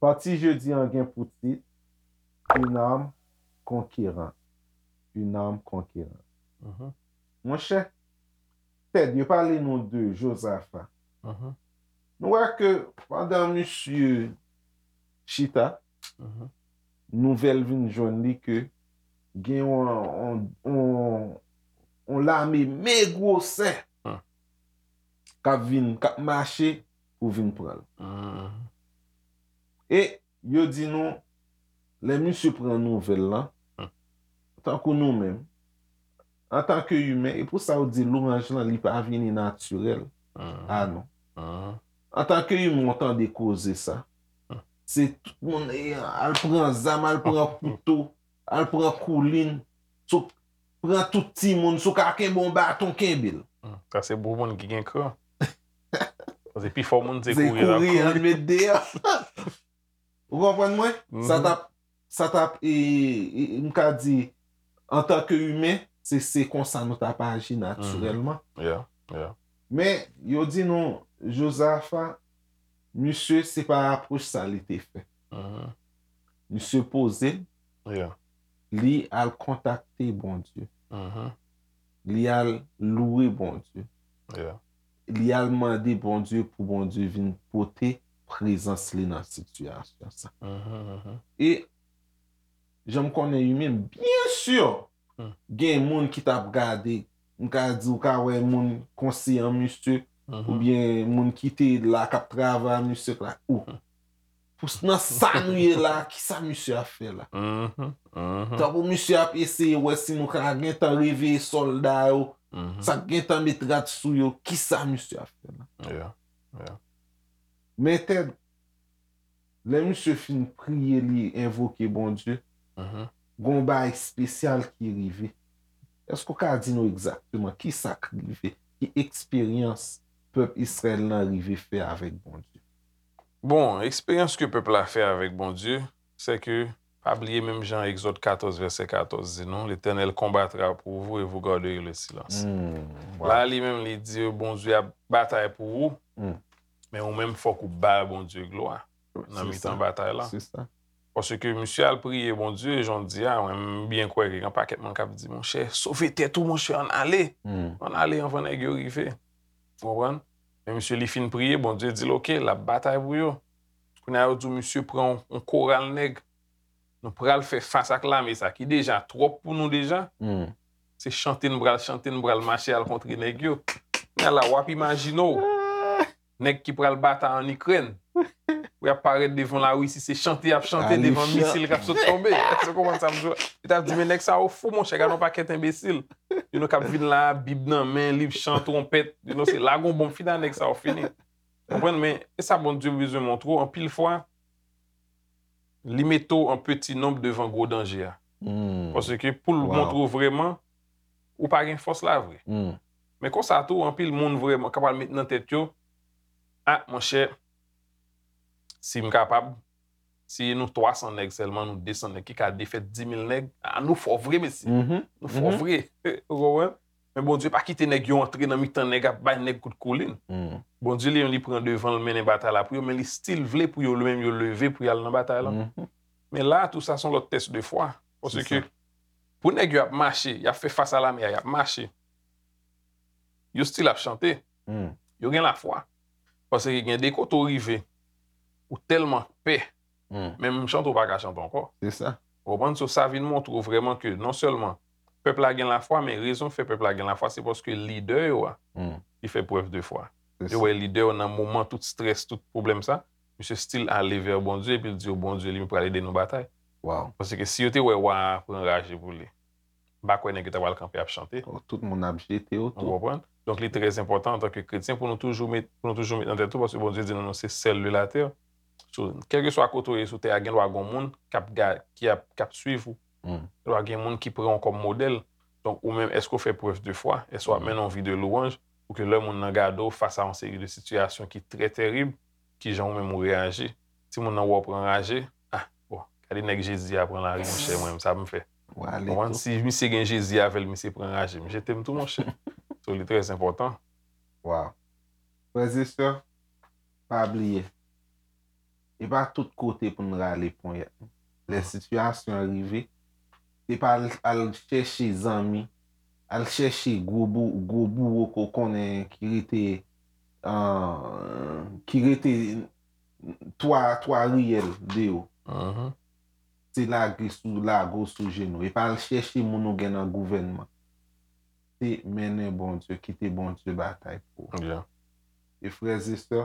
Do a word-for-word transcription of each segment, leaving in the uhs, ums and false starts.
Pati jodi an gen pou tit Une âme conquérante. Une âme conquérante. Monchè, Ted, yo pale nou de Jozafa. Nou wè ke pandan misye chita, nouvèl vin jwenn li ke gen yon, yon, yon, yon lame men gwosè k ap vin, k ap mache pou vin pran l. E yo di nou, lè misye pran nouvèl lan, tankou nou menm, antanke imen, e pou sa yo di louwanj lan, li pa vini natirèl. A non. Antanke imen, w tande koze sa. Se tout moun, e, al pran zam, al pran kouto, al pran koulin, sou, pran tout timoun, si w ka kenbe yon baton, kenbe l. Sa se pou moun ki gen kran. Paske pifò moun se kouri l ap kouri. Kouri, ann met deyò. Ou konprann mwen? Sa t ap, sa t ap, e, e, m ka di, antanke imen, se, se konsa nou t ap aji natirèlman. Men, yo di nou, Jozafa, misye, se pa apwòch sa li te fè. Misye poze l, li al kontakte Bondye. Li al louwe Bondye. Li al mande Bondye pou Bondye vin pote prezans li nan sitiyasyon sa. E jan m konnen imen, byen si, gen moun ki t ap gade, m ka di, ou ka wè moun konseyan misye, oubyen moun ki te la k ap travay misye la, ou. Pou s-, nan sa nou ye la, kisa misye ap fè la? Tankou misye ap eseye wè si nou ka gentan reveye sòlda yo, sa k gentan met rad sou yo, kisa misye ap fè la? Men Ted, lè misye fin priye, li envoke Bondye, gen yon bagay espesyal ki rive. Èske w ka di nou egzakteman kisa k rive? Ki eksperyans pèp Izrayèl lan rive fè avèk Bondye? Bon, eksperyans ke pèp la fè avèk Bondye, se ke, pa bliye menm jan Egzòd katòz vèsè katòz di nou, L'Éternel combattra pour vous et vous garderez le silence. La, li menm, li di, Bondye ap batay pou ou, men ou menm, fòk ou ba Bondye glwa nan mitan batay la. Paske misye al priye Bondye, jan w di a, mwen, m byen kwè ke gen pakèt moun k ap di, monchè, sove tèt ou, monchè, ann ale. Ann ale anvan nèg yo rive. Ou konprann? Men misye, li fin priye, Bondye di l, oke, l ap batay pou yo. Kounye a, yo di w misye pran yon, yon koral nèg. Nou pral fè fas ak lame sa ki deja twòp pou nou deja. Se chante n pral chante, n pral mache al kontre nèg yo. Kounye a la, w ap imajine w nèg ki pral batay ann Ikrèn. Pou y ap parèt devan Larisi, se chante y ap chante devan misil k ap sot tonbe. Èske w konprann sa m di w? Yo t ap di, men nèg sa yo fou, monchè, gade yon pakèt enbesil. Youn k ap vin la, Bib nan men, liv chan, twonpèt, you know, se lage yon bonm, fini a nèg sa yo fini. Konprann, men e sa Bondye bezwen montre w, anpil fwa, li mete w an peti nonb devan gwo danje a. Paske pou l montre w vrèman, ou pa gen fòs la vre. Men konsa tou, anpil moun vrèman ka pral met nan tèt yo, a, monchè, si m kapab, si nou twa san nèg sèlman, nou de san nèg ki ka defèt di mil nèg, a, nou fò vre, mesye. Nou fò vre. Ou konprann? Men Bondye pa kite nèg yo antre nan mitan nèg, ap bay nèg kout koulin. Bondye li menm li pran devan, l mennen batay la pou yo, men li still vle pou yo, li menm yo leve pou y al nan batay la. Men la, tou sa se yon lòt tès de fwa. Paske pou nèg yo ap mache, y ap fè fas a lame a, y ap mache. Yo still ap chante. Yo gen lafwa. Paske gen de kote w rive, ou tèlman pè, menm chante w pa ka chante ankò. Se sa. Ou konprann? So, sa vin montre w vrèman ke non sèlman pèp la gen lafwa, men rezon k fè pèp la gen lafwa, se paske lidè yo a, li fè prèv de fwa. Yo wè lidè yo nan moman tout strès, tout pwoblèm sa, misye still ale vè Bondye, epi l di yo, Bondye li menm pral ede nou batay. Paske si yo te wè wa a pran raje pou li, m pa kwè nèg yo ta pral kanpe ap chante. Tout moun ap jete yo tou. Ou konprann? Donk, li trè enpòtan antanke kretyen pou nou toujou met, pou nou toujou met nan tèt nou, paske Bondye di nou, nou se sèl de latè. So, kèlkeswa kote w ye sou tè a, gen dwa gen yon moun k ap ga-, ki ap, k ap swiv ou. Gen dwa gen moun ki pran w kòm modèl. Donk, ou menm, èske w fè prèv de fwa? Èske w ap mennen yon vi de louwanj pou ke lè moun nan gade w fas a yon seri de sitiyasyon ki trè tèrib, kijan ou menm ou reyaji? Timoun nan wè w pran raje, a, bon, gade nèg Jezi a pran lari, monchè, mwen menm, sa pou m fè? Ou ale Konprann? tou. Si misye gen Jezi avè l, misye pran raje m. Jete m tou, monchè. So, li trè enpòtan. Wow. Frè e sè, pa bliye. E pa tout kote pou n rale ponyèt. Lè sitiyasyon an rive, se pa al, al chèche zanmi, al chèche gwo, bou, gwo bouwo ke w konnen ki rete, uh, ki rete twa, twa riyèl de yo. Mhm. Se lage sou, lage w sou jenou. E pa al chèche moun ou gen nan gouvènman. Se mennen Bondye, kite Bondye batay pou ou. Yeah. E frè e sè,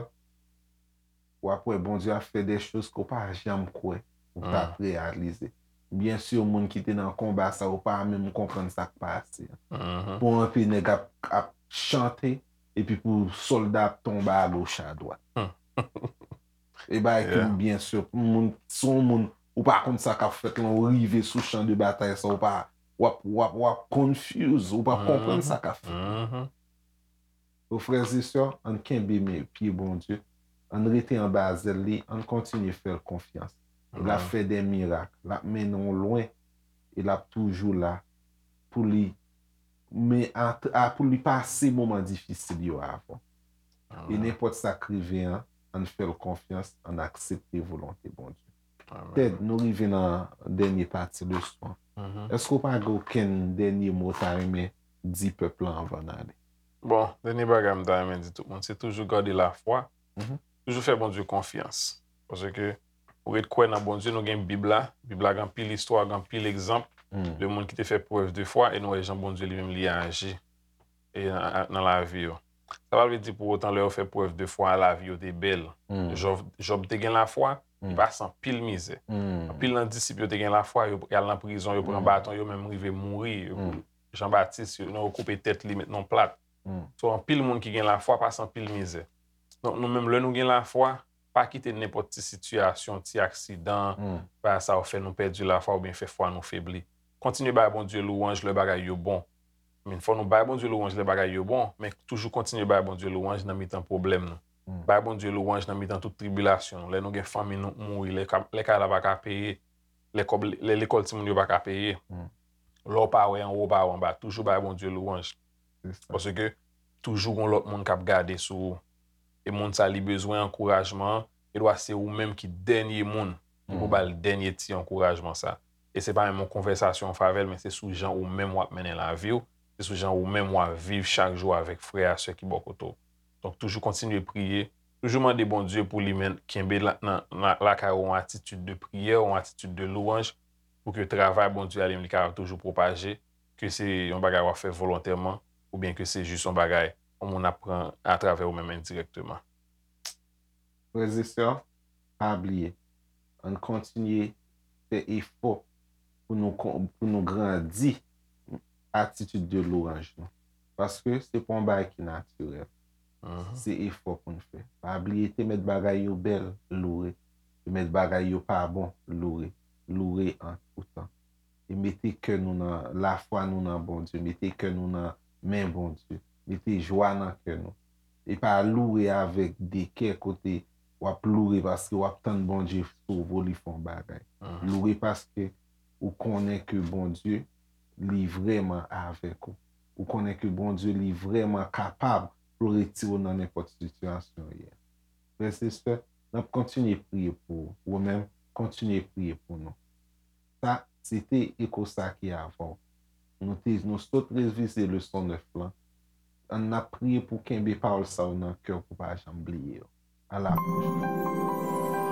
w ap wè Bondye ap fè de choz ke w pa janm kwè ou t ap reyalize. Byen si moun ki te nan konba sa yo pa menm konprann sa k pase. Mhm. Pou anpil nèg ap, ap chante epi pou sòlda ap tonbe agoch adwat. E bagay ke Yeah. byen si moun, si yon moun ou pa konn sa k ap fèt lan, ou rive sou chan de batay sa, ou pa, w ap, w ap, w ap confuse, ou pa konprann sa k ap fèt. Mhm. O frè e sè, ann kenbe men pye Bondye, ann rete anba zèl li, ann kontinye fè l konfyans. L ap fè de mirak, l ap mennen w lwen, e l ap toujou la pou li, men a, a, pou li pase moman difisil yo avè w. E nenpòt sa k rive an, ann fè l konfyans, ann aksepte volonte Bondye. Amen. Ted, nou rive nan dènye pati leson. Mhm. Èske w pa gen okenn dènye mo w ta renmen di pèp lan anvan n ale? Bon, dènye bagay m ta renmen di tout moun, se toujou gade lafwa. Mhm. Toujou fè Bondye konfyans. Paske ou ret kwè nan Bondye, nou gen Bib la. Bib la gen anpil istwa, gen anpil egzanp Mm. de moun ki te fè prèv de fwa e nou wè jan Bondye li menm li aji e nan, nan lavi yo. Sa pa vle di pou otan lè yo fè prèv de fwa, lavi yo te bèl. Mm. Jòb, Jòb te gen lafwa, li Mm. pase anpil mizè. Mm. Anpil nan disip yo te gen lafwa, yo al nan prizon, yo pran Mm. baton, yo menm rive mouri. Yo- Mm. Jan Batis, yo, yo koupe tèt li, met nan yon plat. Mm. So, anpil moun ki gen lafwa pase anpil mizè. Donk, nou menm, lè nou gen lafwa, pa kite nenpòt ti sitiyasyon, ti aksidan, Mm. pa sa yo fè nou pèdi lafwa oubyen fè fwa nou febli. Kontinye bay Bondye lwanj lè bagay yo bon. Men fò nou bay Bondye lwanj lè bagay yo bon, men toujou kontinye bay Bondye lwanj nan mitan pwoblèm nou. Mm. Bay Bondye lwanj nan mitan tout tribilasyon nou. Lè nou gen fanmi nou mouri, lè ka- lè kay la pa ka peye, lè kòb, lè lekòl timoun yo pa ka peye. Mm. Lè w pa wè anwo, w pa wè anba, toujou bay Bondye lwanj. Se sa. Paske toujou gon lòt moun k ap gade sou ou. E moun sa li bezwen ankourajman an, e dwa se ou menm ki dènye moun ki pou Mm. ba l dènye ti ankourajman sa. E se pa menm yon konvèsasyon w fè avè l, men se sou jan ou menm w ap mennen lavi w, se sou jan ou menm w ap viv chak jou avèk frè a sè ki bò kote w. Donk, toujou kontinye priye, toujou mande Bondye pou li men kenbe la, nan, nan, lakay ou yon atitid de priyè, yon atitid de lwanj, pou ke travay Bondye a li menm li kapab toujou pwopaje, ke se yon bagay w ap fè volontèman, oubyen ke se jis yon bagay yon moun ap pran atravè ou menm endirèkteman. Frè e sè, pa bliye, ann kontinye fè efò pou nou, kon- pou nou grandi atitid de lwanj nou. Paske se pa yon bagay ki natirèl. Mhm. Se efò pou n fè. Pa bliye te mèt bagay yo bèl, loure. Te mèt bagay yo pa bon, loure. Loure an tou tan. E mete kè nou nan, lafwa nou nan Bondye. Mete kè nou nan men Bondye. Mete jwa nan kè nou. E pa loure avèk de kè kote w ap loure paske w ap tann Bondye sove w, li fè yon bagay. Mhm. Loure paske ou konnen ke Bondye, li vrèman avèk ou. Ou konnen ke Bondye, li vrèman kapab pou l retire w nan nenpòt sitiyasyon w ye a. Frè e sè, n ap kontinye priye pou ou. Ou menm, kontinye priye pou nou. Sa, se te Eko sa ki avè w. Nou te, nou sot revize leson nèf lan. Ann ap priye pou kenbe pawòl sa yo nan kè w pou pa janm bliye yo. A la pwochen.